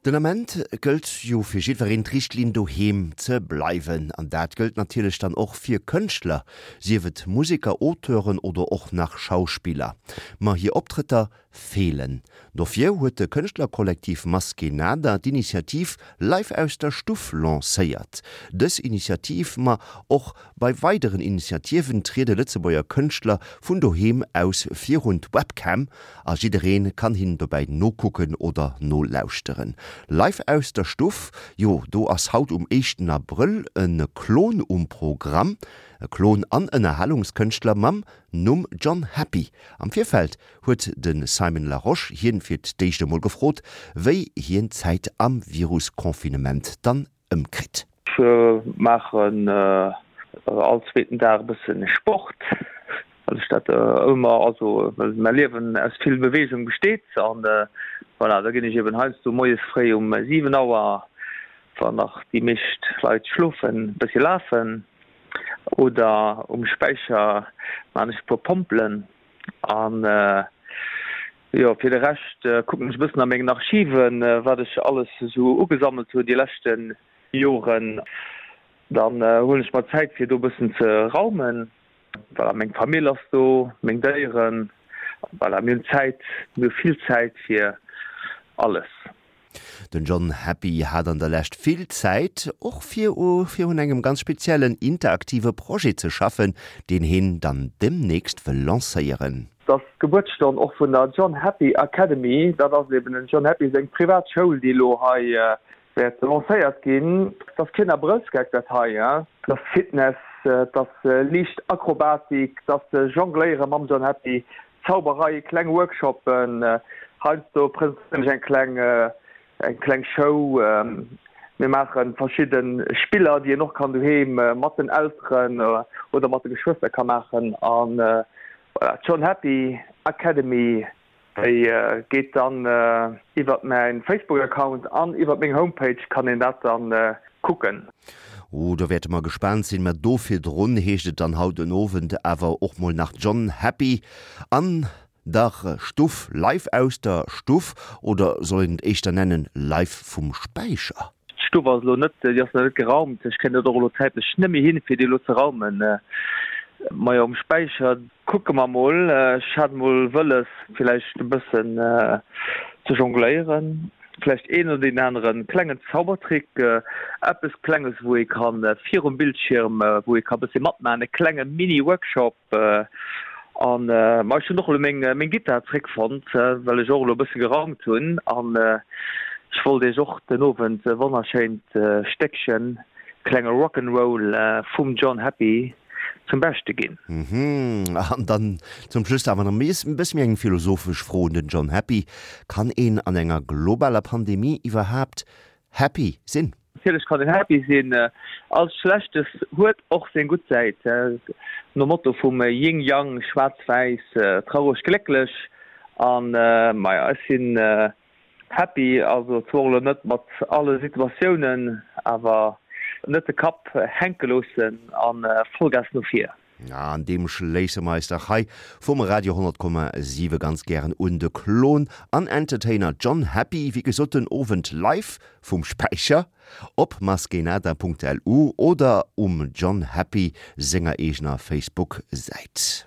Den Ament gëllt jo fir jiddwereen d'Richtlinn doheem ze bleiwen. An dat gëllt natierlech dann och fir Kënschtler, sief et Museker, Auteuren oder och nach Schauspiller. Ma hir Optrëtter feelen. Dofir huet de Kënschtlerkollektiv Maskénada d'Initiativ Live aus der Stuff lancéiert. Dës Initiativ, ma och bei weideren Initiativen triede Lëtzebuerger Kënschtler vun doheem aus virun d'Webcam A jiddereen kann hinnen dobäi nokucken oder nolauschteren. Live aus der Stuff, jo do ass haut um éischten Abrëll e Klon um Programm. E Klon an Ënnerhalungskënschtler mam Numm John Happy. Am Virfeld huet de Simon Larosche hien fir d'éischt emol gefrot, wéi hien d'Zäit am Virus-Confinement dann ëmkritt. Ech maachen all zweeten Dag e bësse Sport, well ech dat ëmmer, also well mäi Liewen aus vill Beweegung besteet. An voilà, da ginn ech eben heiansdo moies fréi um 7 Auer, wann nach déi meescht Leit schlofen, e bëssi lafen oder um Späicher maan ech e puer Pompelen. An jo, fir de Rescht kucken ech e bëssen a mengen Archiven, wat ech alles esou ugesammelt hunn déi leschte Joren. Dann huelen ech mer Zäit fir do e bëssen ze raumen. Voilà, meng Famill ass do, meng Déieren. Voilà, mir hunn Zäit, mir hu vill Zäit fir alles. Den John Happy hat an der Lescht vill Zäit, och fir u fir un engem ganz speziellen interaktive Projet ze schaffen, deen heen dann demnächst wëll lancéieren. Et ass d'Gebuertsstonn och vun der John Happy Academy. Dat ass eben dem John Happy seng privat Schoul, déi elo hei wäert lancéiert ginn. Et ass keen Abrëllsgeck dat hei, et ass Fitness, et ass liicht Akrobatik, et ass Jongléiere mam John Happy, Zauberei, kleng Workshoppen, heiansdo presentéieren ech eng kleng eng kleng Show. Mir maache verschidde Spiller, déi een och kann doheem mat den Elteren oder mat de Geschwëster ka maachen. An voilà, d'John Happy Academy, déi geet dann iwwert mäin Facebook-Account an iwwert meng Homepage kann een dat dann kucken. Oh, do wäerte mer gespaant sinn. Mä do virdrun heescht et dann haut den Owend awer och mol nach John Happy an der Stuff, live aus der Stuff, oder soll een et éischter nennen, live vum Späicher? D'Stuff ass elo net, déi ass nach net geraumt. Ech kréien dat och elo zäitlech net méi hin, fir déi elo ze raumen. Majo, um Späicher kucke mer mol. Ech hat mol wëlles, villäicht e bëssen ze jongléieren. Vläicht een oder deen anere klengen Zaubertrick, eppes Klenges, wou ee ka virum Bildschierm, wou ee ka bëssi matmaachen, e klenge Mini-Workshop. An ma ech hunn och elo meng meng Gittar zréckfonnt, well ech och elo e bësse geraumt hunn. An ech wollt iech och den Owend e wonnerschéint Stéckchen, klenge Rock 'n' Roll vum John Happy zum Beschte ginn. Mhm. An dann zum Schluss awer nach e bësse méi eng philosophesch Fro un den John Happy, Kann een an enger globaler Pandemie iwwerhaapt happy sinn? Natierlech kann een happy sinn. All Schlechtes huet och seng gutt Säit. Nom Motto vum Yin-Yang, schwaarz-wäiss, traureg, glécklech. An maja, ech sinn Happy, also zwar elo net mat alle Situatiounen, awer net de Kapp hänke loossen a Vollgas no vir. An deem schléisse mer eis dach hei vum Radio 100,7 ganz gären un. De Klon an Entertainer John Happy, wéi gesot den Owend live vum Späicher op maskenada.lu oder um John Happy senger eegener Facebook-Säit.